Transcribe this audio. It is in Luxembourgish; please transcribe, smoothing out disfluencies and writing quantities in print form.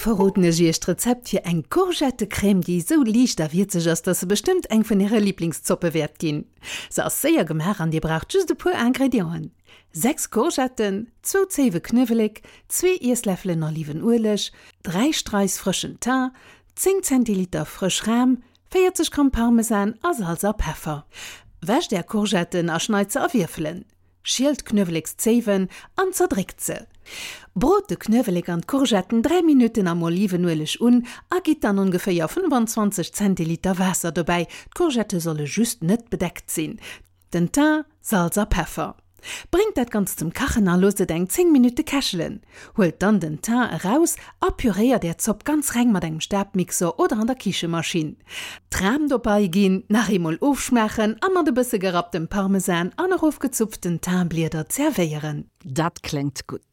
verroden ech iech d'Rezept fir eng Courgettecrème, déi esou liicht a wierzeg ass, dass se bestëmmt eng vun äre Liblingszoppe wäert ginn. Se ass séier gemaach an dir braucht just e puer Ingredienten, 6 Courgetten, zwou Zéiwe Knuewelek, zwee Iessläffelen Olivenueleg, 3 Straiss frëschen Thym, 10 Zentiliter frësch Ram, 40 Gramm Parmesan a Salz a Peffer. Wäscht är Courgetten a schneit se a Wierfelen. Schielt d'Knuewelekszéiwen an zerdréckt se. Brot de Knuewelek an d'Courgetten 3 Minutten am Olivenueleg un a gitt dann ongeféier 25 Zentiliter Waasser dobäi, d'Courgette solle just net bedeckt sinn. Den Thym, Salz a Peffer. Bréngt dat Ganzt zum Kachen a loosst et eng 10 Minutte kächelen. Huelt dann den Thym eraus a püréiert är Zopp ganz reng mat engem Stabmixer oder an der Kichemaschinn. D'Ram dobei ginn, nach eemol ofschmaachen a mat e bësse gerapptem Parmesan an erofgezupften Thymblieder zerwéieren. Dat kléngt gutt.